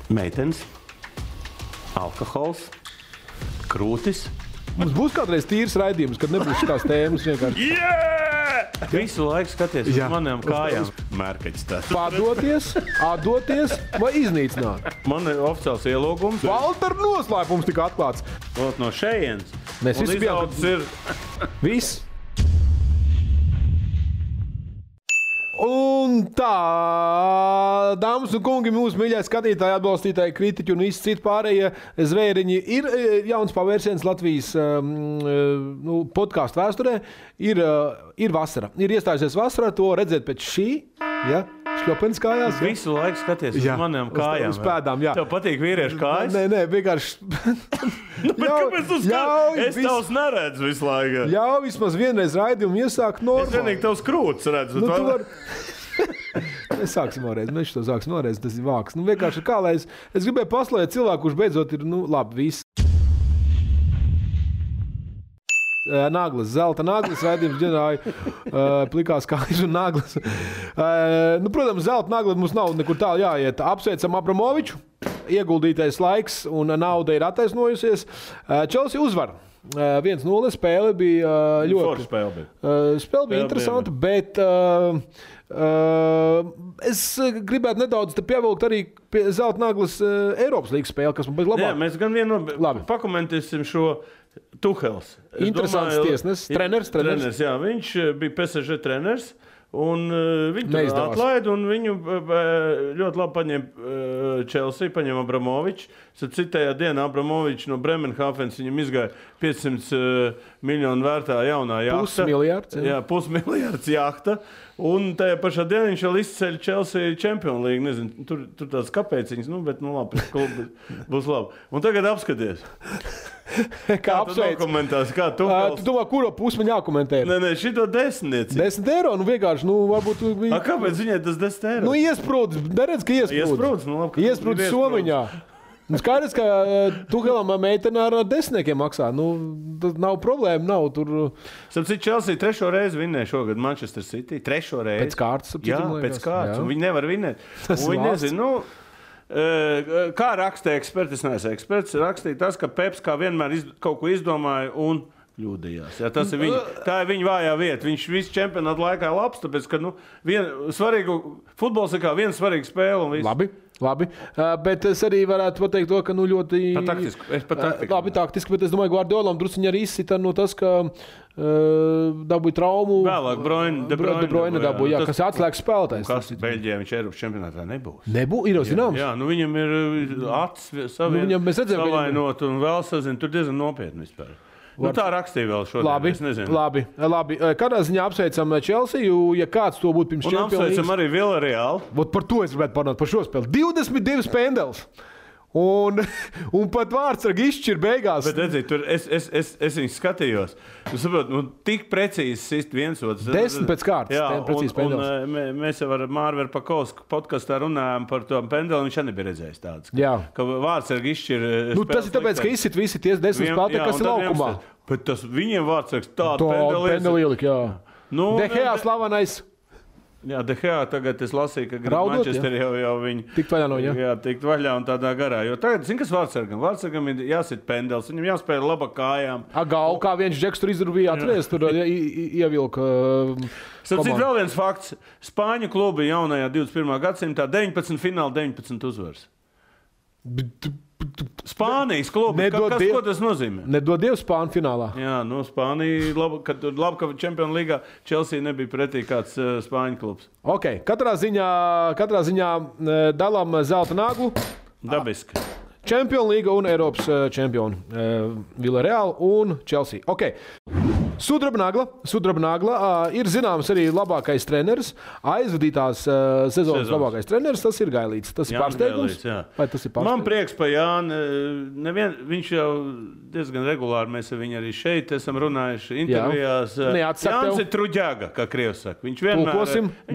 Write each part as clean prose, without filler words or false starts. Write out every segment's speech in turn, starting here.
Meitenes, alkohols, krūtis. Mums būs kādreiz tīrs raidījums, kad nebūs šitās tēmas vienkārši. Visu laiku skaties uz maniem kājām. Mērkaķis tāds. Padoties, atdoties vai iznīcināt. Man ir oficiāls ielūgums. Valter noslēpums tika atklāts. Lūk, no šejienes. Mēs visi bijām. Viss. Un tā, dāmas un kungi, mūsu mīļie skatītāji, atbalstītāji, kritiķi un visi citi pārējie zvēriņi, ir jauns pavērsiens Latvijas podkāstu vēsturē. Ir vasara. Ir iestājusies vasara, to redzēt pēc šī, šļopens kājās. Visu laiku skaties uz maniem kājām. Uz pēdām, jā. Tev patīk vīriešu kājas? Nē, vienkārši. Kāpēc tu skaties? Es tavs neredzu visu laiku. Jā, vismaz vienreiz raidījumu iesākt normāli. Es vienīgi tavs krūtis redzu. Nu, tu var... Mēs sāksim vēlreiz, mēs to sāksim vēlreiz, tas ir vāks. Nu, vienkārši kā, lai es gribēju paslēgt cilvēku, kurš beidzot ir, labi, viss. Naglas, zelta naglas, raidījums ģenerāja plikās kājas un naglas. Protams, zelta nagla mums nav nekur tālu jāiet. Apsveicam Abramoviču, ieguldītais laiks un nauda ir attaisnojusies. Chelsea uzvar. 1-0 spēle bija ļoti... Spēle bija interesanta, bet es gribētu nedaudz pievilkt arī pie zelta naglas Eiropas līgas spēle, kas man bija labāk. Jā, mēs gan vienu pakomentēsim šo Tuhels. Interesants tiesnes, treneris. Jā, viņš bija PSG treneris. Un viņu atlaida, un viņu ļoti labi paņēma Chelsea, paņēma Abramoviču. Citējā dienā Abramovičs no Bremenhāfens viņam izgāja 500 miljonu vērtā jaunā jahta. Pusmiljards jahta. Un tajā pašā dienā viņš vēl izceļ Chelsea Champions League. Nezinu, tur tāds kāpēciņas, bet labi, būs labi. Un tagad apskaties. Kā tu dokumentās? Kā tu domā, kuro pusi man jākomentē? Nē, šito 10. 10 eiro, vienkārši, varbūt... Kāpēc viņai tas 10 eiro? Iesprūdz, neredz, ka iesprūdz. Iesprūdz Somiņā. Skaidrs, ka Tuhelam meitene ar 10 maksā. Tas nav problēma, nav tur... Sapcīt, Chelsea 3. reizi vinnēja šogad Manchester City. 3. reizi. Pēc kārtas. Jā, pēc kārtas. Un viņi nevar vinnēt. Viņi nezinu, kā rakstīja eksperti, es neesmu eksperts, rakstīja tas, ka Peps kā vienmēr kaut ko izdomāja un kļūdījās. Jā, tas ir tā ir viņa vājā vieta. Viņš visu čempionātu laikā labs, tāpēc, ka futbols ir kā viena svarīga spēle un viss. Labi, bet es arī varētu pateikt to, ka ļoti... Labi, taktiski, bet es domāju, Guardiolam drusciņi arī izsita tas, ka dabūja traumu. Vēlāk De Bruyne dabūja, kas atslēgas spēlētājs. Kas Beļģijā viņš Eiropas čempionātā nebūs. Ir jau zināms. Jā, viņam ir acis savainot un vēl sazina, tur diezgan nopietni vispār. Tā rakstīja vēl šodien. Labi. Kādā ziņā apsveicam Chelsea, ja kāds to būtu pirms Champions League? Un apsveicam arī Villarreal. Par to es gribētu parunāt, par šo spēli. 22 pendels. Un pat vārdsargi izšķir beigās. Bet redzīt, tur es viņus skatījos. Tik precīzi sist viens otrs. 10 pēc kārtas. Jā, un mēs jau ar Mārveru Pakovsku podkastā runājām par to pendeli, viņš nebija redzējis tāds. Ka vārdsargi izšķir spēles. Tas ir tāpēc, ka izsit visi ties 10 spēlētāji, kas ir laukumā. Bet tas viņiem vārdsargs tādu pendeli ielika, jā. De Gea slavenais. Jā, De Gea tagad es lasīju, ka Manchester jau viņi... Tikt vaļā no viņa. Jā, tikt vaļā un tādā garā. Jo tagad, kas vārdsargam? Vārdsargam ir jāsit pendels, viņam jāspēj laba kājām. Gau, kā viens džeks tur izdarīja, atries, tur ievilka komandu. Vēl viens fakts. Spāņu klubi jaunajā 21. gadsimtā 19 fināli, 19 uzvaras. Spānijas klubi. Ko tas nozīmē? Nedod Dievu Spāņu finālā. Jā, Spānija, labi, ka Champions Līgā Chelsea nebija pretī kāds Spāņu klubs. Ok, katrā ziņā dalām zelta naglu. Dabiski. Champions Līga un Eiropas čempioni. Villarreal un Chelsea. Ok. Sudraba nagla ir zināms arī labākais treneris, aizvadītās sezonas labākais treneris, tas ir Gailīts. Tas ir pārsteigums? Vai tas ir pārsteigums? Man prieks pa Jāni, viņš jau diezgan regulāri, mēs ar viņu arī šeit esam runājuši intervijās. Jānis ir truģēga, kā krievs saka. Viņš vienmēr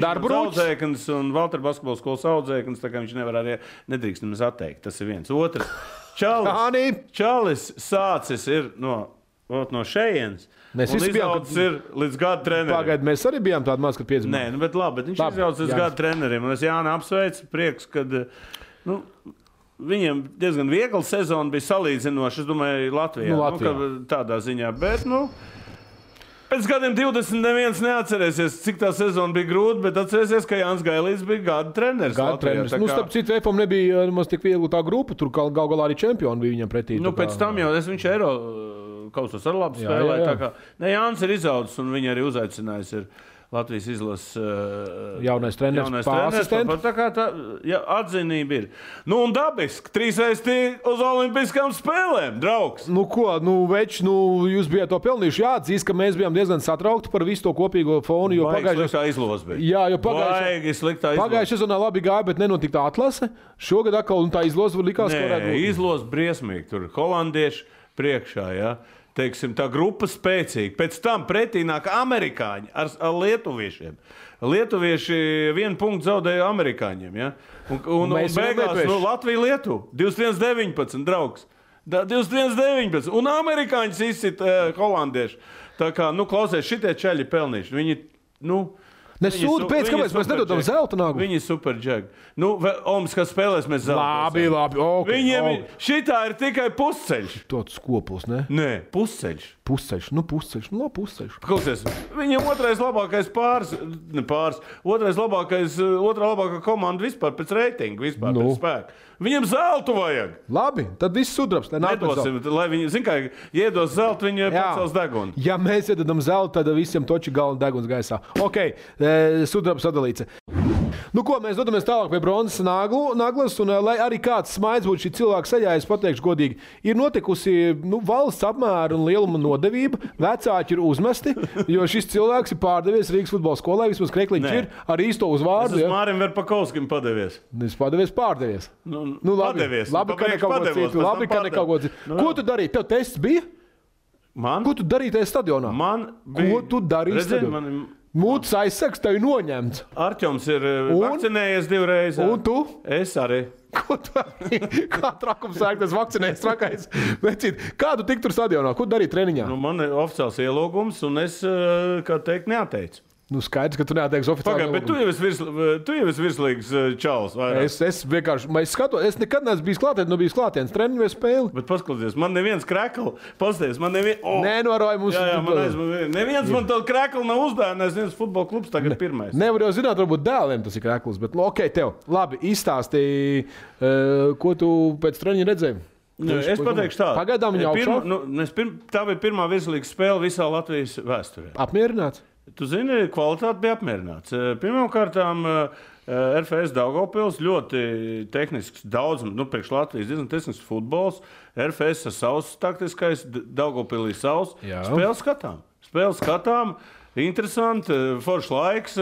ir audzēknis un Valter basketbola skolas audzēknis, tā kā viņš nevar arī nedrīkst nemaz atteikt. Tas ir viens. Otrs. Čalis sācis ir no šejienes. Mēs un izaudzis ir līdz gada trenerim. Pagaid, mēs arī bijām tādi maz, kad piedzimām. Nē, bet viņš izaudzis līdz gada trenerim. Un es Jāni apsveicu, prieks, kad... viņiem diezgan viegla sezona bija salīdzinoši, es domāju, Latvijā. Tādā ziņā, bet, pēc gadiem 20 neviens neatcerēsies, cik tā sezona bija grūta, bet atcerēsies, ka Jānis Gailīts bija gada treneris. Starp citu, EFOM nebija maz tik viegli tā grupa, tur galā arī čempioni bija viņam pretī. Pēc tam jau viņš Eiro kausos ar labu spēlē. Jānis ir izaudzis un viņi arī uzaicinājis ir Latvijas izlases jaunais treneris, asistents. Tā kā atzinība ir. Un dabiski, 3 reizes uz olimpiskām spēlēm, draugs. Jūs bijāt to pelnījuši. Jāatzīst, ka mēs bijām diezgan satraukti par visu to kopīgo fonu. Sliktā izlozes bija. Jā, jo pagājušajā sezonā labi gāja, bet nenotika tā atlase. Šogad atkal tā izloze likās, ka varētu būt. Izloze briesmīgi. Tur holandieši priekšā, jā. Teiksim, tā grupa spēcīga. Pēc tam pretī nāk amerikāņi ar lietuviešiem. Lietuvieši 1 punktu zaudēja amerikāņiem. Ja? Un beigās Latvija-Lietuva 21-19, draugs. 21-19. Un amerikāņus izsit holandieši. Tā kā, klausies, šitie čeļi pelnīši. Viņi, Nesūdi pēc, kāpēc mēs nedodam zelta naglu? Viņi ir superģegi. Olimpiskās spēlēs mēs zelta. Labi. Viņiem šitā ir tikai pusceļš. Tāds skopus, ne? Nē, pusceļš. Pusceļš. Pusceļš. Klausies, viņiem otrais labākais otrā labākā komanda vispār pēc reitinga, vispār pēc spēka. Viņiem zeltu vajag. Labi, tad viss sudrabs. Nedosim, lai viņi, kā iedos zeltu, viņi pacels degunu. Ja mēs iedodam zeltu, tad visiem toči galva deguns gaisā. Ok, sudrabs sadalīts. Mēs dodamies tālāk pie bronzas naglas, un lai arī kāds smaids būtu šī cilvēka seļā, es pateikšu godīgi, ir notikusi valsts apmēra un lieluma nodevība, vecāki ir uzmesti, jo šis cilvēks ir pārdevies Rīgas futbola skolai, vismaz Krekliņš ir ar īsto uzvārdu. Es uz Mārim Verpakovskim padevies. Es pārdevies. Labi, ka nekaugot citu. Ko tu darīji? Tev tests bija? Man? Ko tu darīji tajā stadionā? Ko tu darīji stadionā? Mūtas aizsaks tev ir noņemts. Arķoms ir vakcinējies 2 reizes. Un tu? Es arī. Ko tu arī? Kā trakums sāk tas vakcinējies trakais? Kā tu tik tur stadionā? Ko darīji treniņā? Man ir oficiāls ielūgums un es, kā teikt, neateicu. Skaidrs, ka tu neatteiksi oficiāli. Bet tu jau esi virslīgs čalis. Es vienkārši skatos, es nekad neesmu bijis klātienes treniņu vai spēli. Bet paskaties, man neviens krekli, pasties, man neviens... Nenoroja mums... Neviens man tādu krekli nav uzdāvinājis, viens futbola klubs tagad pirmais. Nevar jau zināt, varbūt dēliem tas ir kreklis, bet ok, tev. Labi, izstāstīji, ko tu pēc treniņa redzēji? Es pateikšu tā. Pagaidām viņa augšā? Tā bija pirmā virslīga spēle visā Latvijas vēsturē. Apmierināts? Tu zini, kvalitāte bija apmierināts. Pirmkārtām, RFS Daugavpils ļoti tehnisks, daudz, priekš Latvijas diezgan tehnisks futbols. RFS ar savs taktiskais, Daugavpilī savs. Spēles skatām, interesanti, foršs laiks.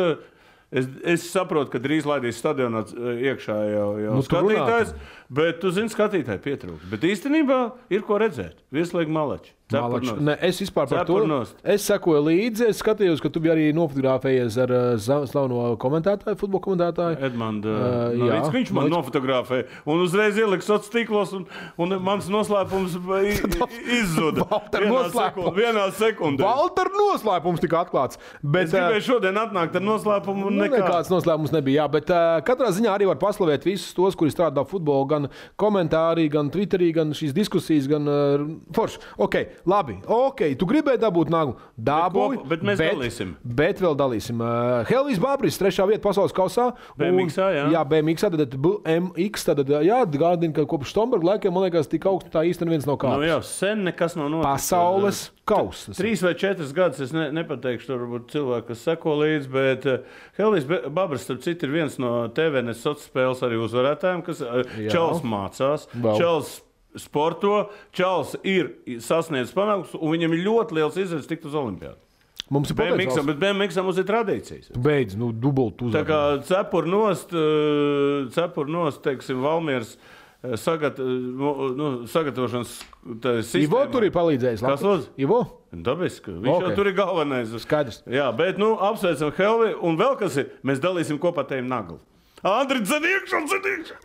Es saprotu, ka drīz laidīs stadionā iekšā jau skatītājs, bet tu zini, skatītāji pietrūkst. Bet īstenībā ir ko redzēt. Vieslīgi malači. Es vispār par to. Es sekoju līdzi, es skatījos, ka tu biji arī nofotografējies ar slaveno komentētāju, futbola komentētāju. Edmundu. Viņš man nofotografēja un uzreiz ieliks sociālos tīklos un mans noslēpums izzuda. Vienā sekundē. Valter noslēpums tika atklāts. Es gribēju šodien atnākt ar noslēpumu un nekāds noslēpums nebija, jā, bet katrā ziņā arī var paslavēt visus tos, kuri strādā futbolu, gan komentāri, gan Twitterī, gan šīs diskusijas, gan forši. Labi, tu gribēji dabūt naglu? Dabūji, bet mēs dalīsim. Bet vēl dalīsim. Helvijs Babris, 3. vieta pasaules kausā. BMX-ā, jā. Jā, BMX-ā, tad BMX, tad gādina, ka kopš Štomberga laikiem, man liekas, tik augstu tā īsti neviens nav kāds. Jā, sen nekas nav noticis. Pasaules kausas. 3 vai 4 gadus, es nepateikšu, tur varbūt cilvēki, kas seko līdzi, bet Helvijs Babris, starp citu, ir viens no TVNS sociālas spēles arī uzvarētājiem, kas Čels mācās. Čels sporto, Čals ir sasniedzis panākums, un viņam ir ļoti liels izredzes tikt uz olimpiādu. Mums ir potenciāls. Bet BMX mums ir tradīcijas. Beidz, dubult uzvar. Tā kā cepur nost, teiksim, Valmieras sagatavošanas sistēmā. Ivo tur ir palīdzējis. Kas lūdzu? Ivo? Dabiski. Viņš jau tur ir galvenais. Skaidrs. Jā, bet apsveicam Helvi, un vēl kas ir, mēs dalīsim kopā tējiem naglu. Andri, dzeniekšā!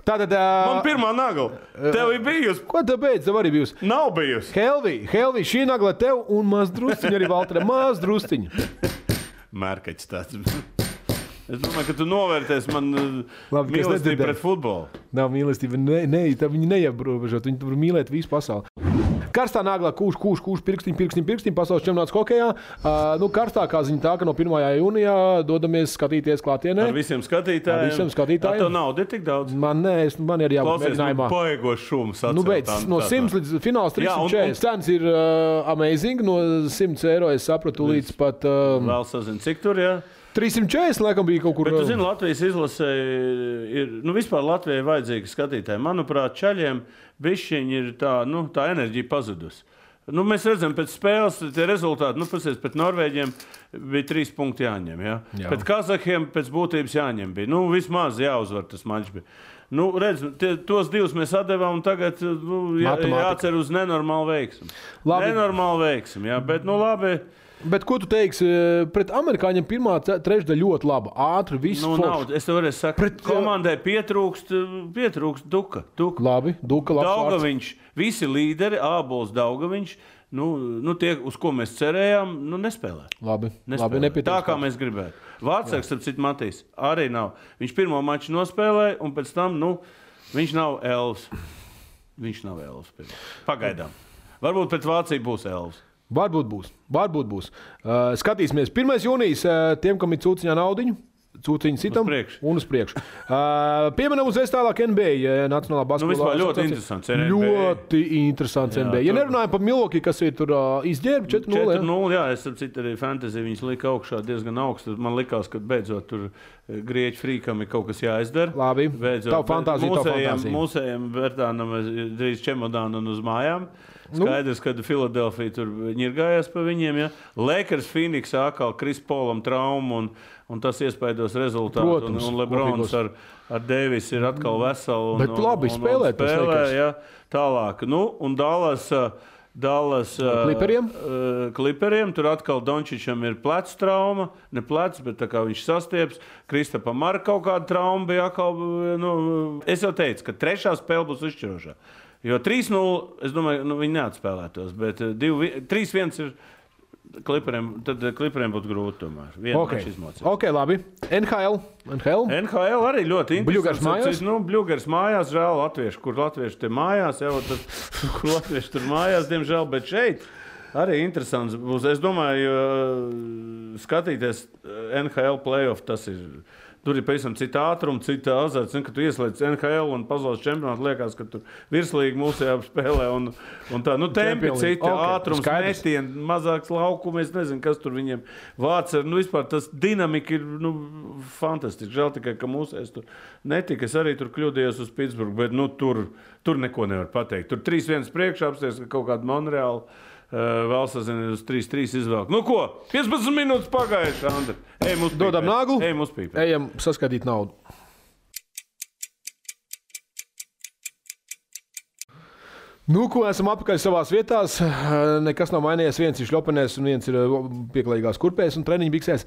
Tātad... Man pirmā nagla. Tev ir bijusi. Ko tev beidz? Tev arī bijusi. Nav bijusi. Helvi, šī nagla tev un maz drusciņa arī Valtere. Maz drusciņa. Mērkaķis tāds. Es domāju, ka tu novērtēsi man mīlestību pret futbolu. Nav mīlestība, viņi neierobežot, viņi tur mīlēt visu pasauli. Karstā naglā kūš, pirkstiņ, pasaules čempionāts hokejā. Karstākā ziņa tā, ka no 1. jūnijā dodamies skatīties klātienē. Ar visiem skatītājiem. Tā nauda ir tik daudz? Man ir jābūt mēģinājumā. Paiegošs šums atcelt. No 100 līdz fināls 340. Cenas ir amazing. No 100 eiro es sapratu līdz pat... Vēl sazinu, cik tur, jā? 340 laikam bija kaut kur. Bet tu zini, Latvijas izlasē ir, vispār Latvijai vajadzīgi skatītāji. Manuprāt, čaļiem bišķiņi ir tā enerģija pazudus. Mēs redzam, pēc spēles tie rezultāti, pēc Norvēģiem bija 3 punkti jāņem, ja? Pēc Kazahiem pēc būtības jāņem bija. Vismaz jāuzvar tas mačs bija. Tos 2 mēs atdevām un tagad jācer uz nenormālu veiksmu. Nenormālu veiksmu, jā, bet labi. Bet ko tu teiksi pret amerikāņiem? Pirmā trešdaļa ļoti laba, ātri, viss forši. Es tev varēšu sakāt, komandai pietrūkst Duka. Labi, Duka, labs Daugaviņš, visi līderi, Ābols, Daugaviņš, tie, uz ko mēs cerējām, nespēlē. Labi, nepietiek. Tā kā mēs gribētu. Vārtsargs, ap citu Matīs, arī nav. Viņš pirmo maču nospēlēja, un pēc tam, viņš nav elvs. Pagaidām. Varbūt pret Vāciju būs elvs. Varbūt būs. Skatīsimies. 1. jūnijas tiem, kam ir cūciņā naudiņu. Cūciņu sitam un uz priekšu. Pieminam uzreiz tālāk NBA. Nacionālā basketbolā. Vispār ļoti interesants NBA. Ļoti interesants NBA. Ja nerunājam par Milwaukee, kas ir tur izģērbi 4-0. 4-0, jā. Es citu arī fantasy viņus lika augšā diezgan augstu. Man likās, ka beidzot tur grieķu frīkam ir kaut kas jāizdara. Labi. Tavu fantāziju. Mūsējiem Bertānam drīz čemodānu un uz mājām. Skaidrs, ka Filadelfija tur ņirgājās pa viņiem. Ja? Lakers, Phoenix, atkal Kris Polam traumu un tas iespaidos rezultātu. Protams, un Lebrons ar Davis ir atkal veseli. Bet labi spēlē. Ja? Tālāk. Un Dallas Kliperiem. Tur atkal Dončičam ir plecs trauma. Ne plecs, bet tā kā viņš sastieps. Kristapam ar kaut kādu traumu bija atkal. Es jau teicu, ka trešā spēle būs izšķirošā. Jo 3-0, es domāju, viņi neatspēlētos, bet 3-1 ir Kliperiem, tad Kliperiem būtu grūti tomēr. Ok, labi. NHL arī ļoti interesants. Bļugars mājās? Bļugars mājās, žēl latvieši, kur latvieši te mājās, kur latvieši tur mājās, diemžēl, bet šeit arī interesants būs. Es domāju, skatīties NHL playoff, tas ir... Tur ir pavisam cita ātruma, cita azarts. Kad tu ieslēdz NHL un pasaules čempionātu, liekas, ka tur virslīgi mūsējā spēlē. Un tā, tempi cita, ātrums, metieni, mazāks laukums. Es nezinu, kas tur viņiem vārds ir. Vispār tas dinamika ir fantastiski. Žēl tikai, ka mūsējās tur netika. Es arī tur kļūdījos uz Pitsburgu, bet tur neko nevar pateikt. Tur 3-1 priekšā apsties, ka kaut kāda Monreāla. Vēl sazinu uz 3-3 izvēlku. 15 minūtes pagājuši, Andri. Dodam naglu. Ejam uz pīpē. Ejam saskatīt naudu. Ko esam apakaļ savās vietās. Nekas nav mainījies. Viens ir šļopenēs un viens ir pieklājīgās kurpēs un treniņu biksēs.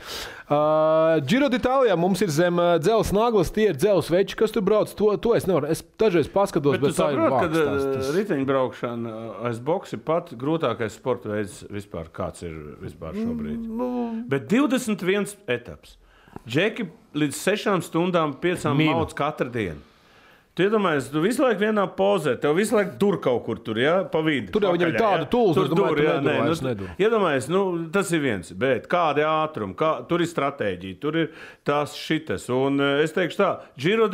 Giro d'Italijā mums ir zem dzelzs naglas, tie ir dzelzs veči, kas tur brauc. To es nevaru. Es dažreiz paskatos, bet tā ir vārds. Bet tu saprot, ka riteņbraukšana aiz boks ir pat grūtākais sporta veids vispār, kāds ir vispār šobrīd. Bet 21 etaps. Džeki līdz 6 stundām 5 mauc katru dienu. Tu iedomājies, tu visu laiku vienā pozē, tev visu laiku dur kaut kur tur, ja, pa vidu. Tur jau viņam ir tāda tūls, es domāju, tu nedur. Iedomājies, tas ir viens, bet kādi ātrumi, tur ir stratēģija, tur ir tās šitas. Un es teikšu tā, Giro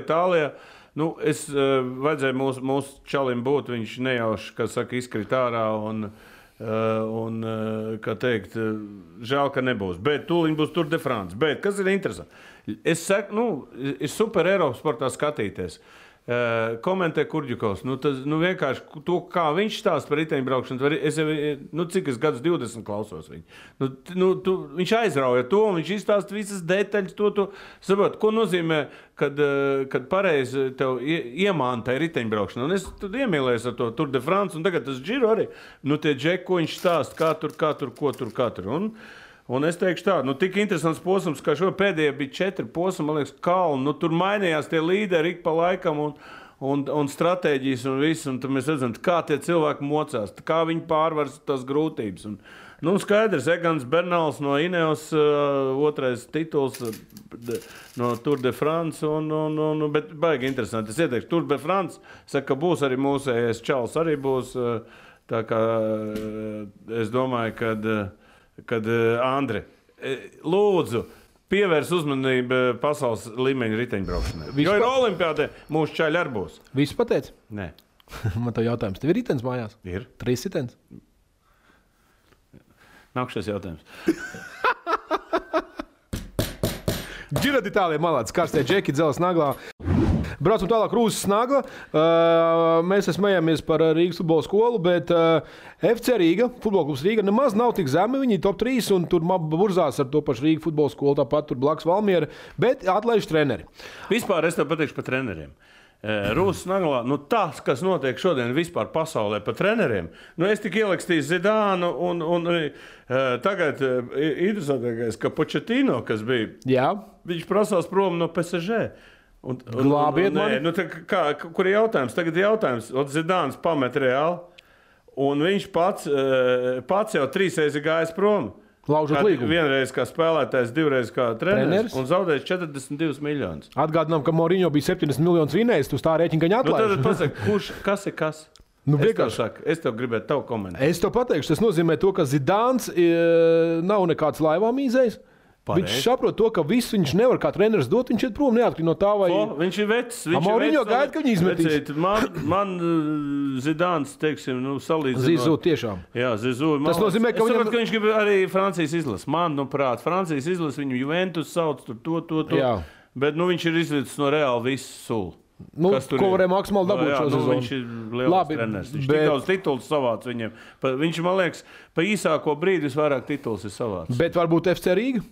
Itālijā, vajadzēja mūsu čalim būt, viņš nejauši, kā saka, izkrit ārā un kā teikt, žēl, ka nebūs. Bet tūliņ būs Tour de France. Bet kas ir interesanti? Es saku, ir super Eiropas sportā skatīties. Komentē Kurģikovs. Vienkārši to, kā viņš stāsta par riteņbraukšanu, es jau, cik es gadus 20 klausos viņu. Viņš aizrauja to, un viņš izstāsta visas detaļas, to saprot, ko nozīmē, kad pareizi tev iemāntai riteņbraukšana. Un es tad iemīlējos ar to Tour de France, un tagad tas Giro arī. Tie džeki, ko viņš stāsta, kā tur. Un es teikšu tā, tik interesants posms, kā šo pēdējie bija 4 posmi, man liekas, kalni. Tur mainījās tie līderi ik pa laikam, un stratēģijas un viss, un tad mēs redzam, kā tie cilvēki mocās, kā viņi pārvar tās grūtības. Un, skaidrs, Egans Bernals no Ineos, otrais tituls no Tour de France, bet baigi interesanti. Es ieteikšu, Tour de France, saka, ka būs arī mūsējais čals, arī būs, tā kā es domāju, kad Andri, lūdzu, pievērs uzmanību pasaules līmeņa riteņbraukšanai. Jo ir olimpiādē, mūsu čaļi arī būs. Visu pateici? Nē. Man tev jautājums. Tev ir ritens mājās? Ir. 3 ritens? Nākšais jautājums. Giro d'Italia malāds, karstie džeki, dzeles naglā. Braucam tālāk Rūsas nagla. Mēs smējamies par Rīgas futbola skolu, bet FC Rīga, futbola klubs Rīga, nemaz nav tik zemi. Viņi ir top 3 un tur burzās ar to pašu Rīga futbola skolu, tāpat tur blakus Valmiera, bet atlaiž treneri. Vispār es tev pateikšu par treneriem. Rūsas naglā, tas, kas notiek šodien vispār pasaulē par treneriem, es tik ielakstīju Zidānu un tagad interesantākais, ka Pochettino, kas bija, Jā. Viņš prasās prom no PSG. Glābiet mani. Kur ir jautājums? Tagad ir jautājums. Zidāns pamet Reāli, un viņš pats jau 3 reizes gājis prom. Laužot līgumu. Vienreiz kā spēlētājs, 2 reizes kā treneris un zaudējis 42 miljonus. Atgādinām, ka Mourinho bija 70 miljonus vinējis, tu tā rēķina, ka viņa atlaiž. Tad pasaka, kas ir kas? Es tev gribētu tavu komentāru. Es tev pateikšu, tas nozīmē to, ka Zidāns nav nekāds laivā mīzējis. Viņš saprot to, ka visu viņš nevar kā treneris dot, viņš iet prom neatkarīgi no tā, vai... Viņš ir vecs. Mourinho gaida, ka viņi izmetīs. Man Zidāns, teiksim, salīdzinot... Zizū tiešām. Jā, Zizū. Tas nozīmē, ka saprot, ka viņš grib arī Francijas izlases. Francijas izlases viņu Juventus sauc tur to. Jā. Bet viņš ir izvedis no Reāli visu sulu. Ko varēja maksimāli dabūt šo sezonu. Viņš ir liels treneris. Viņš tik daudz titulus savāc viņiem. Viņš, man liekas, pa īsāko brīdi visvairāk titulus ir savāc. Bet varbūt FC Rīga?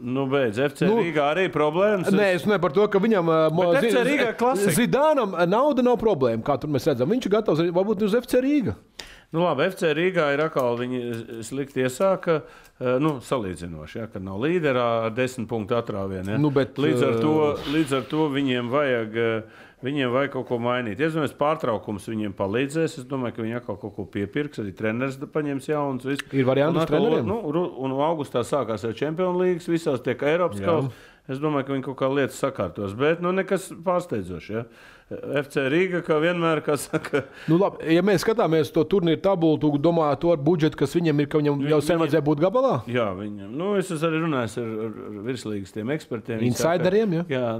Beidz, FC Rīgā arī problēmas. Nē, es nevaru par to, ka viņam Zidānam nauda nav problēma, kā tur mēs redzam. Viņš ir gatavs varbūt uz FC Rīga. Labi, FC Rīgā ir atkal viņi slikti iesāka, salīdzinoši, kad nav līderā ar 10 punktu atrāvienu. Līdz ar to viņiem vajag kaut ko mainīt. Es domāju, pārtraukums viņiem palīdzēs. Es domāju, ka viņi atkal kaut ko piepirks. Arī treneris paņems jauns. Ir varianti uz treneriem? Un augustā sākās jau Champions League, visās tiek Eiropas kausa. Es domāju, ka viņi kaut kā lietas sakārtos. Bet nekas pārsteidzošs. Ja? FC Rīga, kā vienmēr, kā saka. Labi, ja mēs skatāmies to turnīru tabulu, tu domā to ar budžetu, kas viņam ir, ka viņam jau sen vajadzēja būt gabalā? Jā, viņam. Es arī runāju ar virslīgas tiem ekspertiem. Insideriem, ja? Jā,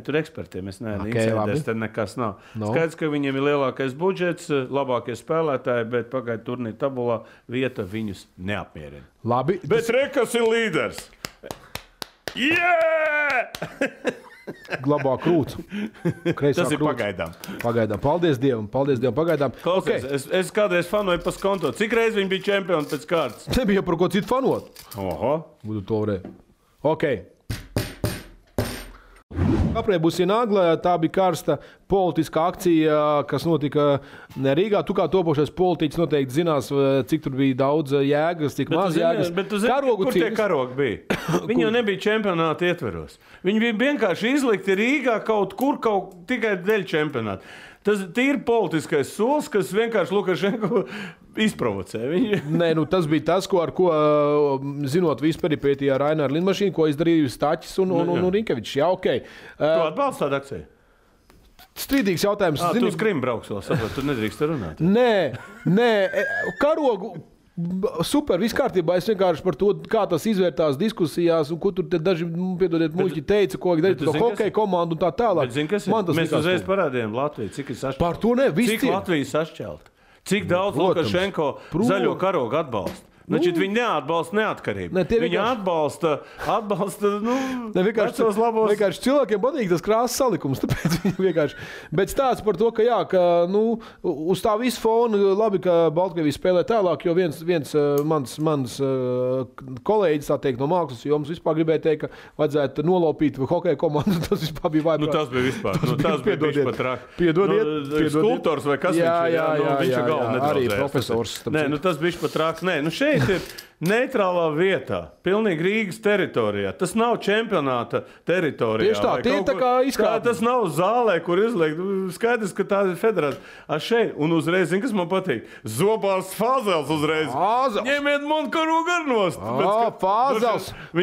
tur ekspertiem. Es neesmu insiders, tad nekas nav. Skaidrs, ka viņiem ir lielākais budžets, labākie spēlētāji, bet pagaidu turnīru tabulā vieta viņus neapmierina. Labi. Bet rekas ir līders! Yeah! Glabā krūts. Tas ir pagaidām. Pagaidām. Paldies Dievam. Pagaidām. Klausies, es kādreiz fanoju pa skonto. Cik reiz viņi bija čempioni pēc kārtas? Nebija par ko citu fanot. Oho. Būtu to varēja. Ok. Aprē būs ienāgla, tā bija karsta politiska akcija, kas notika Rīgā. Tu kā topošais politiķis noteikti zinās, cik tur bija daudz jēgas, cik maz jēgas. Bet tu zini, kur tie karogi bija? Viņi jau nebija čempionāta ietveros. Viņi bija vienkārši izlikti Rīgā kaut kur, tikai dēļ čempionāta. Tas ir politiskais solis, kas vienkārši Lukašenko izprovocē. Nē, tas bija tas, ar ko zinot visu peripētiju ar Raināru lidmašīnu, ko izdarīja Staķis un Rinkevičs. Jā, ok. Tu atbalsti tādu akciju? Strīdīgs jautājums. Tu uz Krimu brauks vēl, saprot, tu nedrīkst runāt. Nē, karogu... Super, viss kārtībā. Es vienkārši par to, kā tas izvērtās diskusijās, un ko tur daži, piedodiet, muļķi teica, ko darīt to hokeja komandu un tā tālāk. Mēs uzreiz parādījām Latviju, cik ir sašķelt. Par to ne, cik Latvija sašķelt. Cik daudz Lukašenko zaļo karogu atbalsta. Viņi neatbalsta neatkarību. Viņi atbalsta vecos labos. Vienkārši cilvēkiem patīk tas krāsas salikums. Tāpēc viņi vienkārši. Bet stāsts par to, ka jā, uz tā visu fonu labi, ka Baltkrievija spēlē tālāk, jo viens mans kolēģis, tā teikt, no mākslas jomas vispār gribēja teikt, ka vajadzētu nolaupīt hokeja komandu. Tas vispār bija vaiprāt. Tas bija vispār. Tas bija vispār trāk. Piedodiet. Skulptors vai kas viņš ir? Jā, arī profesors. Tas bija pat trāk. Šeit ir neitrālā vietā, pilnīgi Rīgas teritorijā. Tas nav čempionāta teritorijā. Tieši tā, tie tā kā izkāpj. Tas nav zālē, kur izliekt. Skaidrs, ka tā ir federācija. Šeit, un uzreiz, zin, kas man patīk? Zobārs Fāzels uzreiz. Ņemiet Monkaru garnost.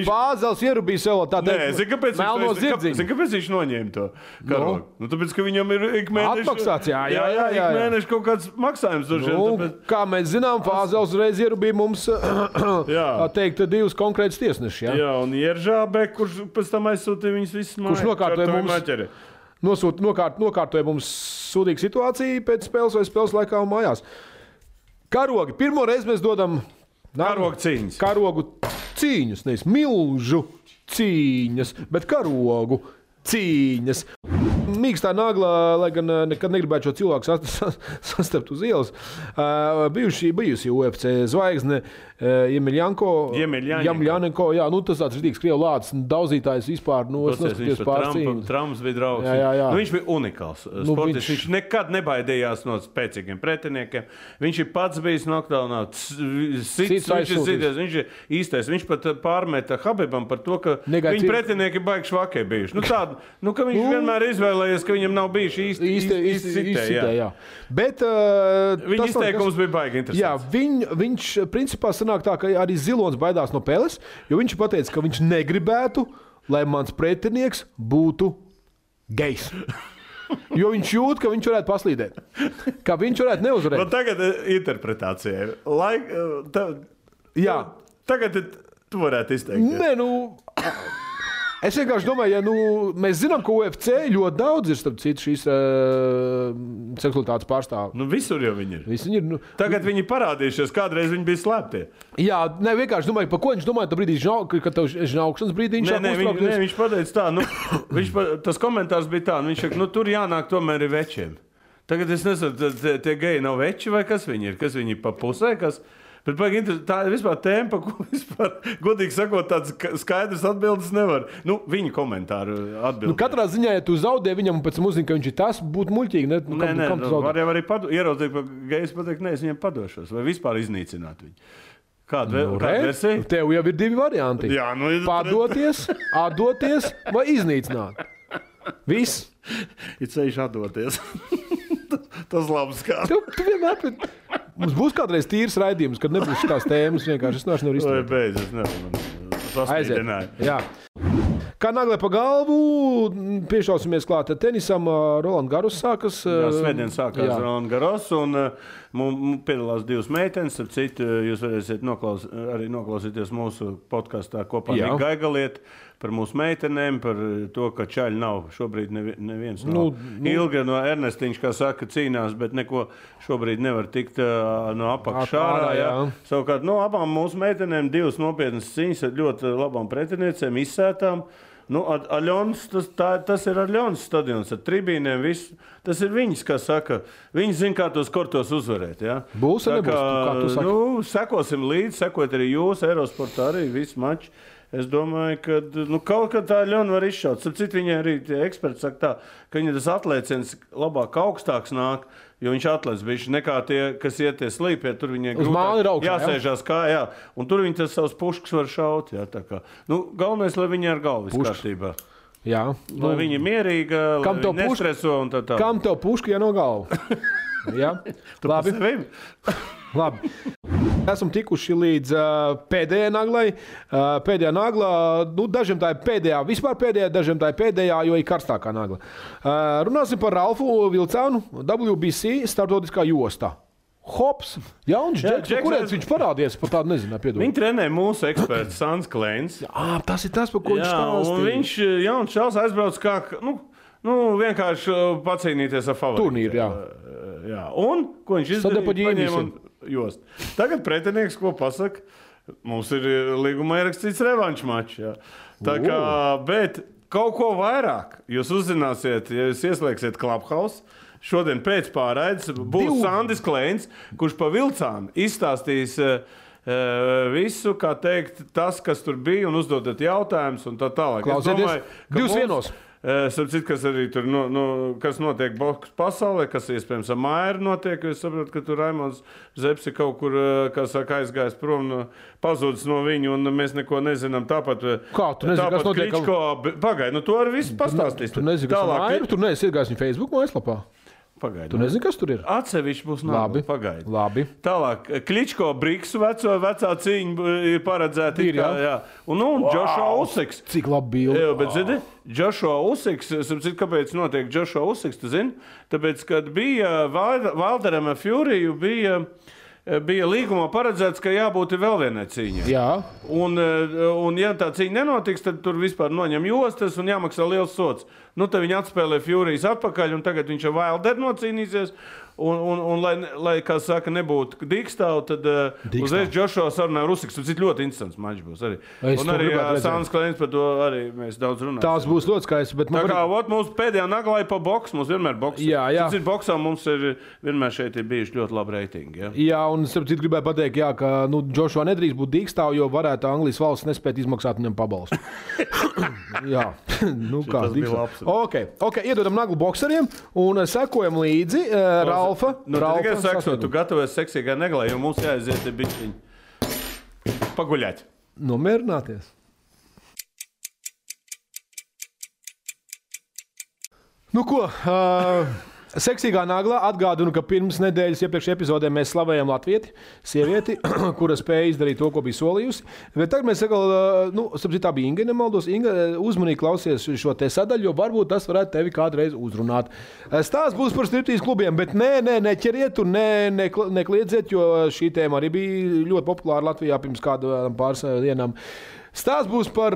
Fāzels ierubīja sev tā teikt. Zin, kāpēc viņš noņēma to karogu? Nu, tāpēc, ka viņam ir ik mēneši... Atmaksāts, jā. Ik mēneši kaut kāds maksājums. Tāpēc... Kā mēs zinām, Fāzels uzreiz ierubīja mums, teikt, divus konkrētus tiesnešus. Jā, un Ieržābe, kurš pēc tam aizsūtīja viņus visus mājas. Kurš nokārtoja mums sūdīgu situāciju pēc spēles vai spēles laikā un mājās. Karogi. Pirmo reizi mēs dodam... Karogu cīņas. Karogu cīņas, nevis milžu cīņas, bet karogu cīņas. Mīkstā nagla, lai gan nekad negribētu šo cilvēku sastapt uz ielas. Bijusi UFC zvaigzne Jemļanenko. Jā, nu tas tāds rītīgs krievu lācis, daudzītājs vispār. Nu, es neskaties pārcīņu. Trumps bija draugs. Jā. Nu, viņš bija unikāls sportists. Viņš nekad nebaidījās no spēcīgiem pretiniekiem. Viņš ir pats bijis noktaunā. Viņš ir īstais. Viņš pat pārmeta Habibam par to, ka viņa pretinieki baigi švakie bijuši. Ka viņš vienmēr izvēlējies, ka viņam nav bijuši īsti sitē. Bet viņa izteikums bija baigi interesants. Jā, viņš principā sanāk tā, ka arī Zilonis baidās no Peles, jo viņš pateica, ka viņš negribētu, lai mans pretinieks būtu gejs. Jo viņš jūt, ka viņš varētu paslīdēt. Ka viņš varētu neuzvarēt. Nu, tagad interpretācijai. Jā. Tagad tu varētu izteikt. Nē, es vienkārši domāju, mēs zinām, ka UFC ļoti daudz ir, starp citu, šīs seksualitātes pārstāvi. Visur jau viņi ir. Tagad viņi parādījušies, kādreiz viņi bija slēptie. Jā, vienkārši domāju, par ko viņš domāja, tā brīdī, kad tev žņaukšanas brīdī viņš uztraukties. Viņš pateica tā, tas komentārs bija tā, viņš saka, tur jānāk tomēr ir večiem. Tagad es nezinu, tie geji nav veči vai kas viņi ir? Kas viņi ir pa pusē, kas... Bet tā ir vispār tēma, par ko vispār, godīgi sakot, tāds skaidrs atbildes nevar. Viņa komentāru atbildes. Katrā ziņā, ja tu zaudē viņam un pēc tam uzzini, ka viņš ir tas, būtu muļķīgi. Var jau arī ieraudzīt, ka gejs pateikt, es viņam padošos. Vai vispār iznīcināt viņu. Kāda versija? Tev jau ir divi varianti. Jā, padoties, atdoties vai iznīcināt. Viss. Ir ceļš atdoties. Tas labs kā. Tu vienmēr... Mums būs kādreiz tīrs raidījums, kad nebūs šitās tēmas. Vienkārši es nevaru izturēt. Es nevaru. Aiziet. Jā. Kā naglē pa galvu, piešausimies klāt tenisam. Roland Garros sākas. Jā, svētdien sākās Roland Garros un piedalās divas meitenes. Ar citu jūs varēsiet arī noklausīties mūsu podkastā kopā ar Gaigaliet par mūsu meitenēm, par to, ka čaļi nav. Šobrīd neviens nav. Ilga no Ernestiņš, kā saka, cīnās, bet neko šobrīd nevar tikt no apakšā. Savukārt, abām mūsu meitenēm divas nopietnas cīņas ar ļoti labām pretiniecēm, izsētām. Aļons, tas ir Aļons stadions ar tribīniem. Tas ir viņas, kā saka. Viņi zina, kā tos kortos uzvarēt. Ja? Būs vai nebūs? Kā tu saki? Sekosim līdzi, sekot arī jūs, Eirosportā arī visu maču. Es domāju, ka kaut kā tā Aļona var izšaut. Citu viņai arī tie eksperti saka tā, ka viņa tas atlēciens labāk augstāks nāk, jo viņš atlēc bišķi nekā tie, kas iet tie slīpie, tur viņai grūtāk jāsēžās kājā. Un tur viņi tas savus puškas var šaut. Jā, tā kā. Galvenais, lai viņi ar galvu viss kārtībā. Jā. Lai viņi mierīga, lai viņi nestreso un tā. Kam tev puška, ja no galva? Jā. Labi. Esam tikuši līdz pēdējai naglai. Pēdējā naglā, dažiem tā ir pēdējā, vispār pēdējā, dažiem tā ir pēdējā, jo ir karstākā nagla. Runāsim par Ralfu Vilcānu, WBC starptautiskā jostā. Hops, jauns džeks, kurēns viņš parādies, par tādu nezinu, piedod. Viņi trenē mūsu eksperts Sans Kleins. Tas ir tas, par ko viņš stāstīja. Un viņš, jauns čels, aizbrauc kā, vienkārši pacīnīties ar favorītu. Turnīru, jā. Un, ko viņš izdarīja, paņēma un jost. Tagad pretinieks, ko pasaka, mums ir līgumā ierakstīts revanšu mačs. Tā kā, bet kaut ko vairāk jūs uzzināsiet, ja jūs ieslēgsiet Clubhouse. Šodien pēc pārraides būs Sandis Kleins, kurš pa Vilcānu izstāstīs visu, kā teikt, tas, kas tur bija, un uzdodat jautājumus un tā tālāk. Klausieties, 2-1. Sapratu, kas arī tur kas notiek boks pasaulē, kas iespējams ar Mairu notiek. Es saprotu, ka tur Raimonds Zepsi kaut kur, kā saka, aizgājis prom, pazudis no viņu, un mēs neko nezinām. Tāpat, kā tu nezini, kas notiek? Kličko, pagaid, tu arī visu pastāstīsi. Tu nezini, kas ar Mairu, tu neesi iegājis viņa Facebook mājaslapā. Pagaid, tu nezini, kas tur ir? Atsevišķi būs nākamā. Pagaid. Labi. Tālāk, Kličko Briksu vecā cīņa ir paredzēta. Jā. Un Joshua Usyks. Cik labi bildi. Jā, bet zini, Joshua Usyks, kāpēc notiek Joshua Usyks, tu zini? Tāpēc, kad bija Wilderam Furyju, bija līgumā paredzēts, ka jābūt vēl vienai cīņai. Jā. Un ja tā cīņa nenotiks, tad tur vispār noņem jostas un jāmaksā liels sots. Tad viņi atspēlē Furijas atpakaļ, un tagad viņš ar Wilderu nocīnīsies. Un lai kā saka, nebūtu dīkstāvu, tad uzreiz Joshua sarunāja Usyks. Tas ir ļoti interesants mačs būs arī. Un arī Sāns Klēns par to arī mēs daudz runājam. Tās būs ļoti skaisti. Tā kā mūsu pēdējā naglā ir pa boksu, mums vienmēr boks. Jā. Tas ir boksā, mums ir vienmēr šeit ir bijuši ļoti labi reitingi. Jā, un sapratu, gribēju pateikt, ka Joshua nedrīkst būt dīkstāvu, jo varētu Anglijas valsts nespēt izmaksāt viņam pabalstu. Jā, kā dīkstāvu. Ok, iedodam naglu bokseriem un sekojam līdzi Ralfa. Tikai sekso, tu gatavojies seksīgai neglai, jo mums jāaiziet bišķiņi paguļāt. Nomierināties. Nu ko, seksīgā naglā atgādinu, ka pirms nedēļas iepriekšējā epizodē mēs slavējam latvieti, sievieti, kura spēja izdarīt to, ko bija solījusi. Bet tagad mēs sakām, tā bija Inga, nemaldos. Inga, uzmanīgi klausies šo te sadaļu, jo varbūt tas varētu tevi kādreiz uzrunāt. Stāsts būs par striptīz klubiem, bet neķeriet un nekliedzēt, jo šī tēma arī bija ļoti populāra Latvijā pirms kādām pāris dienām. Stāsts būs par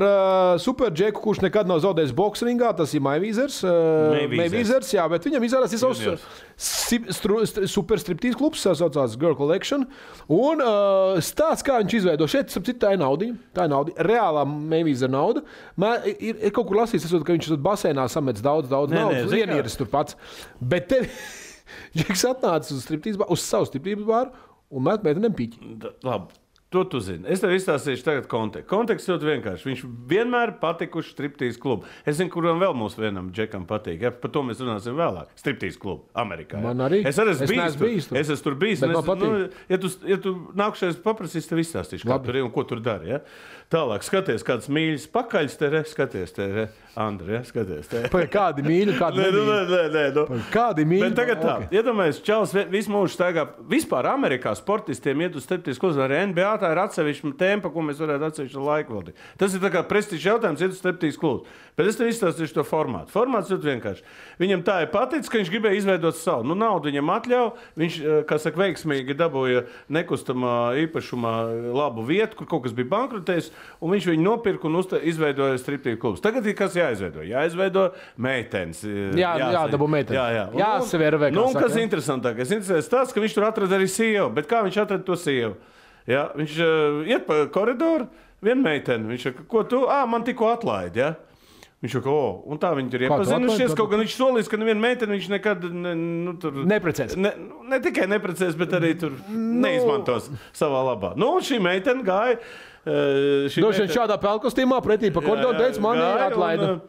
superģeku, kurš nekad nav zaudējis boksringā. Tas ir Mayweathers. Jā, bet viņam izrādās ir savs superstriptīz klubs, saucās Girl Collection. Un stāsts, kā viņš izveido. Šeit, tā ir nauda. Tā ir nauda. Reālā Mayweather nauda. Ir kaut kur lasīts, ka viņš basēnā samets daudz naudas. Vienieris tur pats. Bet tev Džeks atnāca uz savu striptīz bāru un met meitenēm piķi. Labi. To tu zini. Es tev izstāstīšu tagad kontekstu. Konteksts ļoti vienkārši. Viņš vienmēr patikuši striptīz klubu. Es zinu, kuram vēl mūsu vienam džekam patīk. Ja? Par to mēs runāsim vēlāk. Striptīz klubu Amerikā. Man arī. Es arī esmu bijis tur. Es esmu tur bijis. Ja tu nākšais paprasīs, tev izstāstīšu, kā tur ir un ko tur dari. Ja? Tālāk, skaties, kāds mīļas pakaļs te re. Skaties te re. Andri, ja? Skaties te. Kādi mīļi, kādi nemīļi. Kādi mīļi. Bet tagad tā. Iedomājies, Čalis visu mūžu staigā. Vispār Amerikā sportistiem iet uz striptīz klubu arī NBA. Tā ir atsevišķa tēma, ko mēs varētu atsevišķu laiku veltīt. Tas ir tā kā prestižs jautājums, iet uz striptīz klubu. Bet es tev izstāstīšu to formātu. Formāts ļoti vienkārši. Viņam tā ir paticis, ka viņš gribēja izveidot savu. Naudu viņam atļauj. Viņš, kā saka, veiksmīgi dabūja nekustamā īpašumā labu vietu, kur kaut kas bija bankrotējis, un viņš viņu nopirka un izveidoja striptīz klubus. Tagad ir kas jāizveido? Jāizveido meitenes. Dabū meitenes. Jāsaver vai kā saka. Kas interesantākais? Interesants tas, ka viņš tur atrada arī sievu. Bet kā viņš atrada to sievu? Ja? Viņš iet pa koridoru, viena meitene. Viņš saka, ko tu? Man tikko atlaidi, ja? Viņš saka, un tā viņi tur iepazinušies. Kaut gan viņš solīs, ka neviena meitene viņš nekad neprecēs. Ne tikai neprecēs, bet arī tur neizmantos savā labā. Un šī meitene gāja. Šādā pelkostīmā pretī pa koridoru teica, mani atlaida.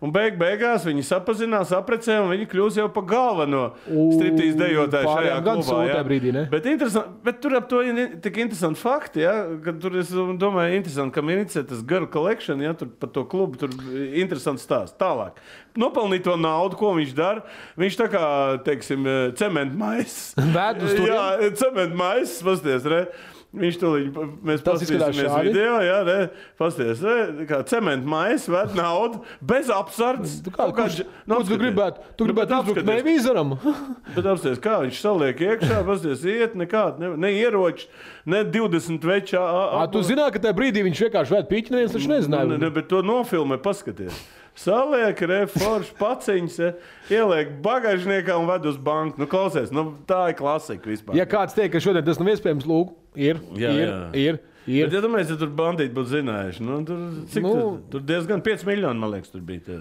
Un beigās viņi sapazinās, apprecē, un viņi kļūs jau par galveno striptīz dejotāju šajā klubā. Brīdī, ne? Bet tur ap to ir tik interesanti fakti, ja? Kad tur es domāju, interesanti, ka inicē tas Girl Collection, ja? Tur par to klubu, tur interesants stāsts. Tālāk. Nopelnīt to naudu, ko viņš dara. Viņš tā kā, teiksim, cementmaiss. Jā, cementmaiss, pasties, re? Viņš tūlīt, mēs paskatīsimies video, jā, ne, pasties, kā cementmaiss ved naudu, bez apsardzes. Tu gribētu uzbrukt Mayweatheram? Bet apsties, kā viņš saliek iekšā, pasties, iet nekād, ne ieroči, ne 20 večā. Tu zināt, ka tajā brīdī viņš vienkārši ved piķi, neviens taču nezināja. Ne, bet to nofilmē, paskaties. Saliek, forši paciņas, ieliek bagāžniekā un ved uz banku. Klausies, tā ir klasika vispār. Ja kāds teikt, ka šodien tas nav iespējams, lūk, ir. Bet, ja domājies, ja tur bandīti būtu zinājuši, tur diezgan 5 miljoni, man liekas, tur bija.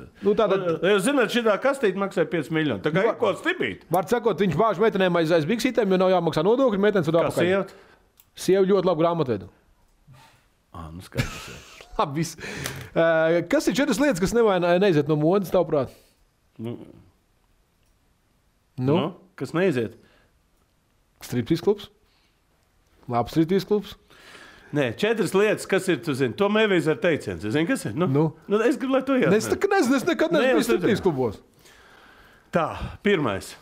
Zināt, šitā kastīte maksāja 5 miljoni. Tā kā ir ko stipīt. Var sakot, viņš bāž meitenēm aiz biksītēm, jo nav jāmaksā nodokļi, meitenes un apakaļ. Kā sieva? Sieva ļoti labu grāmatvedu. Skaidrs. Viss. Kas ir 4 lietas, kas neiziet no modes, tavuprāt? Kas neiziet? Striptease klubs? Labs striptease klubs? Nē, 4 lietas, kas ir, tu zini, to mēvīs ar teiciens. Zini, kas ir? Es gribu, lai tu iet. Es nekad neesmu striptease klubos. Tā, pirmais.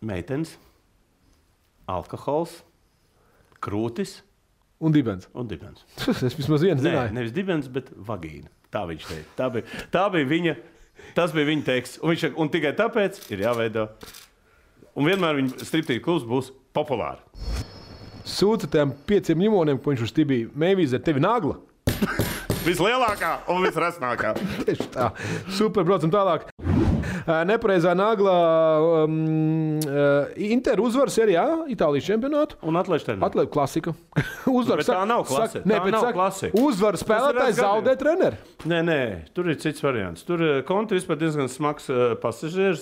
Meitenes, alkohols, krūtis un dibens. Es vismaz vienu zināju. Nevis dibens, bet vagīna. Tā viņš teica. Tas bija viņa teksts. Un tikai tāpēc ir jāveido. Un vienmēr viņa striptease klubs būs populāri. Sūta tiem 5 ļimoniem, ko viņš uz tibī. Mēvīze ar tevi nagla. Vislielākā un visresnākā. Tieši tā. Super, braucam tālāk. Nepareizā nagla Inter uzvar serijā, Itālijas čempionātu. Un atlaiž treneri. Atlaiž klasika. Uzvar, bet tā nav klasika. Uzvar spēlētājs zaudē treneri. Nē, tur ir cits variants. Tur Konte vispār diezgan smags pasažieris.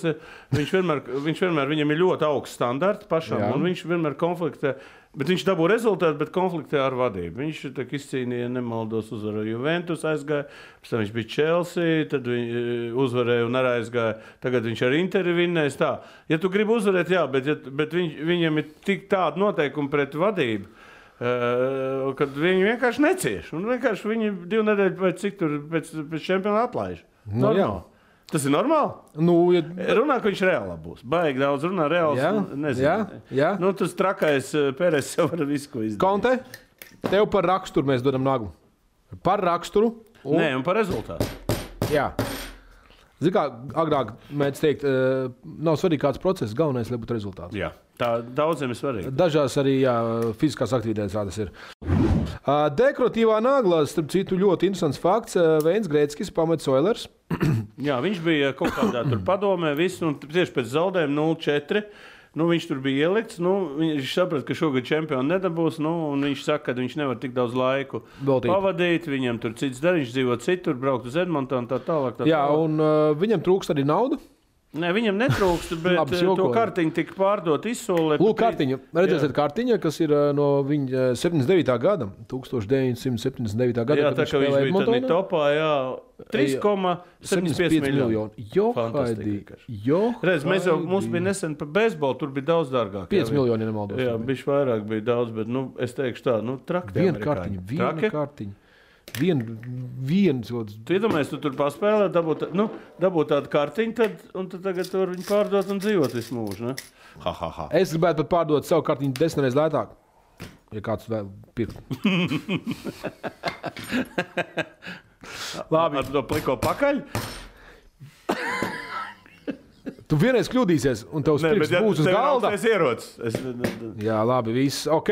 Viņš vienmēr, viņam ir ļoti augsts standarti pašam, un viņš vienmēr konfliktē. Bet viņš dabū rezultātu, bet konfliktē ar vadību. Viņš izcīnīja, nemaldos, uzvarēja Juventus, aizgāja, pēc tam viņš bija Chelsea, tad uzvarēja un arī aizgāja. Tagad viņš ar Interi vinnēs tā. Ja tu gribi uzvarēt, jā, bet viņam ir tik tāda noteikuma pret vadību, kad viņi vienkārši necieš. Un vienkārši viņi 2 nedēļu pēc cik tur pēc čempiona atlaiž. Tas ir normāli? Runā, ka viņš reālā būs. Baigi daudz runā, reāls, nezinu. Jā. Tas trakais Pēres jau var visu, ko izdarīt. Konte, tev par raksturu mēs dodam naglu. Par raksturu. Un par rezultātu. Jā. Zini kā, agrāk mēdz teikt, nav svarīgi kāds process, galvenais, lai būtu rezultāts. Jā, tā daudziem ir svarīgi. Dažās arī fiziskās aktivitātes tādas ir. Dekoratīvā nagla, starp citu, ļoti interesants fakts. Veins Grēckis pamets Oilers. Jā, viņš bija kaut kādā tur padomē, visu, un tieši pēc zaudējuma 0-4. Viņš tur bija ielikts. Viņš saprata, ka šogad čempionu nedabūs. Un viņš saka, ka viņš nevar tik daudz laiku pavadīt. Viņam tur cits dara, viņš dzīvo citur, braukt uz Edmontonu tā tālāk. Jā, un viņam trūkst arī naudu. Nē, viņam netrūkst, bet to kartiņu tika pārdot izsolē. Lūk, kartiņa. Redzēsiet, kartiņa, kas ir no viņa 79. gada. 1979. gada. Jā, tā kā viņš bija tādā topā, 3,75 miljoni. Redz, mums bija nesen par beisbolu, tur bija daudz dārgāk. 5 miljoni nemaldos. Jā, bišķi vairāk bija daudz, bet es teikšu tā, traki. Viena kartiņa. Tu iedomājies, tu tur paspēlē, dabūt tādu kartiņu, un tad tagad tur viņu pārdot un dzīvot visu mūžu, ne? Es gribētu pat pārdot savu kartiņu 10 reizes lētāk, ja kāds vēl pirkt. Labi. Ar to pliko pakaļ? Tu vienreiz kļūdīsies, un tavs pirks būs uz galda. Jā, labi, viss, ok.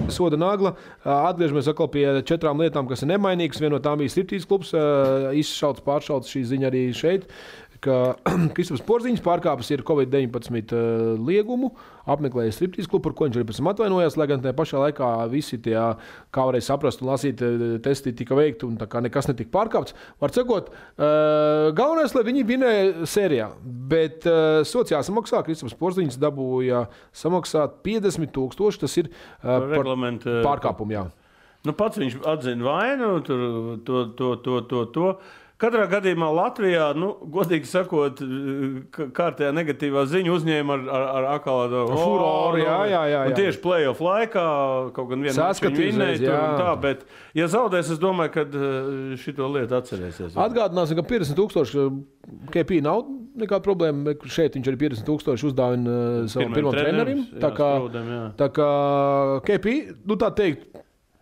Soda nagla. Atgriežamies atkal pie 4 lietām, kas ir nemainīgas. Viena no tām bija striptease klubs. Izšauts, pāršauts šī ziņa arī šeit, ka Kristaps Porziņš pārkāpis ir Covid-19 liegumu, apmeklēja striptease klubu, par ko viņš arī pēc tam atvainojās, lai gan tajā pašā laikā visi tie, kā varēja saprast un lasīt, testi tika veikti un tā kā nekas netika pārkāpts. Var sakot, galvenais, lai viņi vinēja sērijā, bet sots jāsamaksā. Kristaps Porziņš dabūja samaksāt 50,000, tas ir par pārkāpumu, jā. Pats viņš atzina vainu, to. Katrā gadījumā Latvijā, godīgi sakot, kārtējā negatīvā ziņa uzņēma ar akādu furoru. Jā. Un tieši play-off laikā kaut gan vienu maču vinnēja tur un tā, bet ja zaudēs, es domāju, ka šito lietu atcerēsies. Atgādināsim, ka 50,000 KP nav nekāda problēma. Šeit viņš arī 50,000 uzdāvina savam pirmam trenerim. Tā kā KP, tā teikt,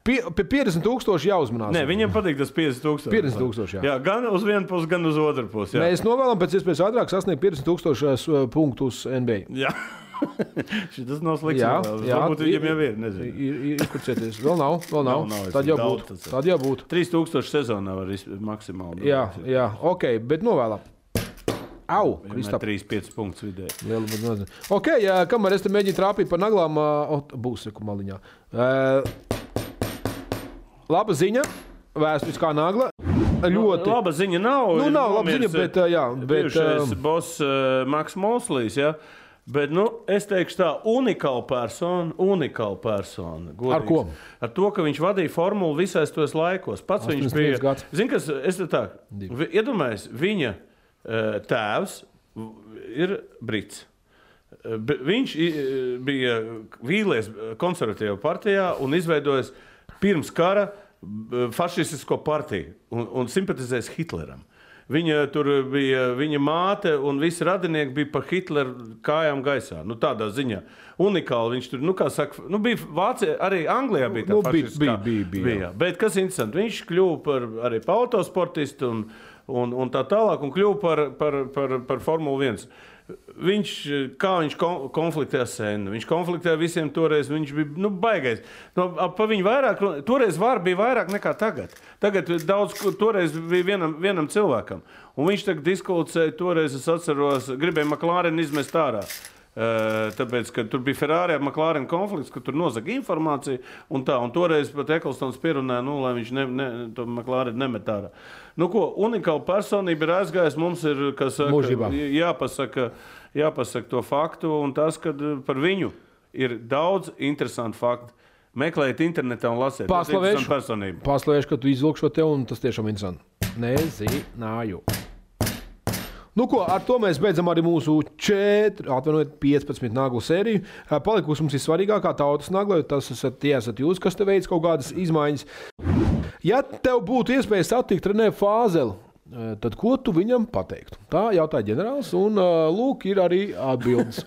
pie 50,000 jāuzmanās. Nē, viņam patīk tas 50,000. 50,000, jā. Gan uz vienu pusi, gan uz otru pusi. Jā. Mēs novēlam pēc iespējas ātrāk sasniegt 50,000 punktus NBA. Jā. Tas nav slikts. Varbūt viņam jau ir, nezinu. Ir kurcieties. Vēl nav. Tad jau būtu. 3,000 sezonā var maksimāli. Jā, ok, bet novēlam. Au, Kristap. 3,5 punktus vidēji. Ok, kamēr es te mēģinu trāpīt par naglām, būs seku maliņā. Laba ziņa, vēsturiskā nagla. Ļoti. Laba ziņa nav. Nav laba ziņa, bet jā. Bijušais boss Maks Moslīs, jā. Bet, es teikšu tā, unikāla persona. Godīgs. Ar ko? Ar to, ka viņš vadīja formulu visais tos laikos. Pats viņš bija. Zini, kas, es te tā, iedomājies, viņa tēvs ir brits. Viņš bija vīlies konservatīvā partijā un izveidojis pirms kara fašistisko partiju un simpatizēs Hitleram. Viņa māte un visi radinieki bija pa Hitleru kājām gaisā. Tādā ziņā. Unikāli viņš tur, kā saka, bija Vācija, arī Anglijā bija tā fašistiskā. Bija. Bet kas interesanti, viņš kļuva arī par autosportistu un tā tālāk un kļuva par Formulu 1. Viņš konfliktēja senu. Viņš konfliktēja visiem toreiz. Viņš bija baigais. Pa viņu vairāk, toreiz var bija vairāk nekā tagad. Tagad daudz, toreiz bija vienam cilvēkam. Un viņš tagad diskutēja, toreiz es atceros, gribēja McLaren izmest ārā. Tāpēc, ka tur bija Ferrari ar McLaren konflikts, ka tur nozaga informāciju un tā. Un toreiz pat Eklstons pierunāja, lai viņš to McLaren nemet ārā. Unikāla personība ir aizgājis. Mums ir, kas jāpasaka to faktu un tas, ka par viņu ir daudz interesantu faktu. Meklējiet internetā un lasiet. Paslavēšu, ka tu izvilk šo tev un tas tiešām interesanti. Nezināju. Ar to mēs beidzam arī mūsu 15 naglu sēriju. Palikusi mums ir svarīgākā tautas nagla, tas esat jūs, kas te veids kaut kādas izmaiņas. Ja tev būtu iespēja satikt Renē Fāzeli, tad ko tu viņam pateiktu? Tā jautāja ģenerālis, un lūk, ir arī atbildes.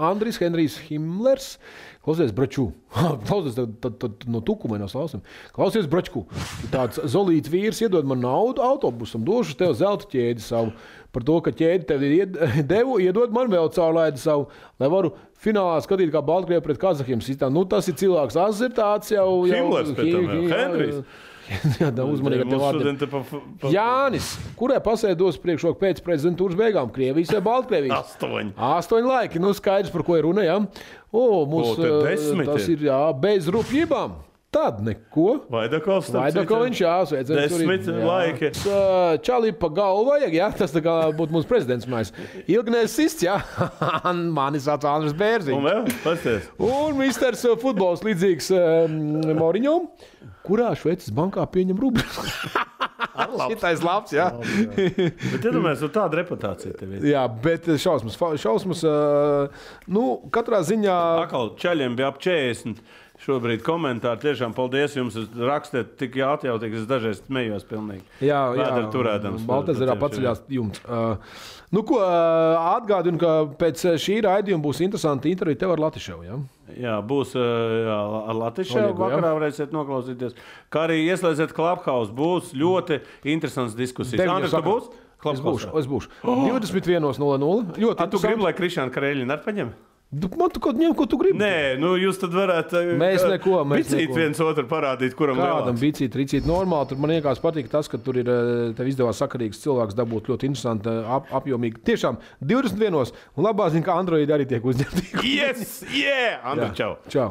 Andris Henrijs Himlers. Klausies, Braču. Klausies, tad no tukuma no slausim. Klausies, Bračku. Tāds zolīts vīrs iedod man naudu autobusam, došu tev zelta ķēdi savu. Par to, ka ķēdi tev devu, iedod man vēl caurlaidi savu, lai varu finālā skatīt, kā Baltkrievi pret Kazahiem sistām. Tas ir cilvēks, tas ir tāds jau... Himlers pēc tam jau, Henrijs. Jā, uzmanīgi ar tev vārdiem. Jānis, kurai pasē dos priekšroku pēc prezidentūras beigām? Krievijas vai Baltkrievijas? 8 laiki, skaidrs, par ko ir runa, jā. Tas ir, jā, bez rupjībām. Tad neko. Vaidakovs, jā, sveicens. 10 laiki. Čalī pa galvu vajag, jā, tas tā kā būtu mūsu prezidents mājās. Ilgnēs sists, jā. Mani sauc Andris Bērziņš. Un vēl, pasties. Un misters futbols līdzīgs Moriņom, kurā Šveices bankā pieņem rubļus. Šitais labs, jā. Bet iedomājies, tāda reputācija tev ir. Jā, bet šausmas, katrā ziņā... Akal, čaļiem bija ap 40. Šobrīd komentāri tiešām paldies jums. Rakstiet tik atjautīgi, es dažreiz smējos pilnīgi. Jā, turēdams. Baltezerā paceļās jumts. Atgādinu, ka pēc šī raidījuma būs interesanti intervija tev ar Latiševu, jā? Jā, būs ar Latiševu. Vakarā varēsiet noklausīties. Kā arī ieslēdziet Clubhouse. Būs ļoti interesants diskusijas. Andris, tu būs? Es būšu. 21:00. Tu gribi, lai Krišāna Kareļina ar paņem? Man tu kaut ņem, ko tu gribi. Nē, jūs tad varētu... Mēs neko. Bicīt viens otru parādīt, kuram lielāks. Kādam bicīt, ricīt normāli. Tur man iekās patīk tas, ka tur ir tev izdevās sakarīgs cilvēks dabūt ļoti interesanti, apjomīgi. Tiešām 21. Un labā zina, ka Android arī tiek uzņemti. Yes, yeah! Andri, čau! Čau!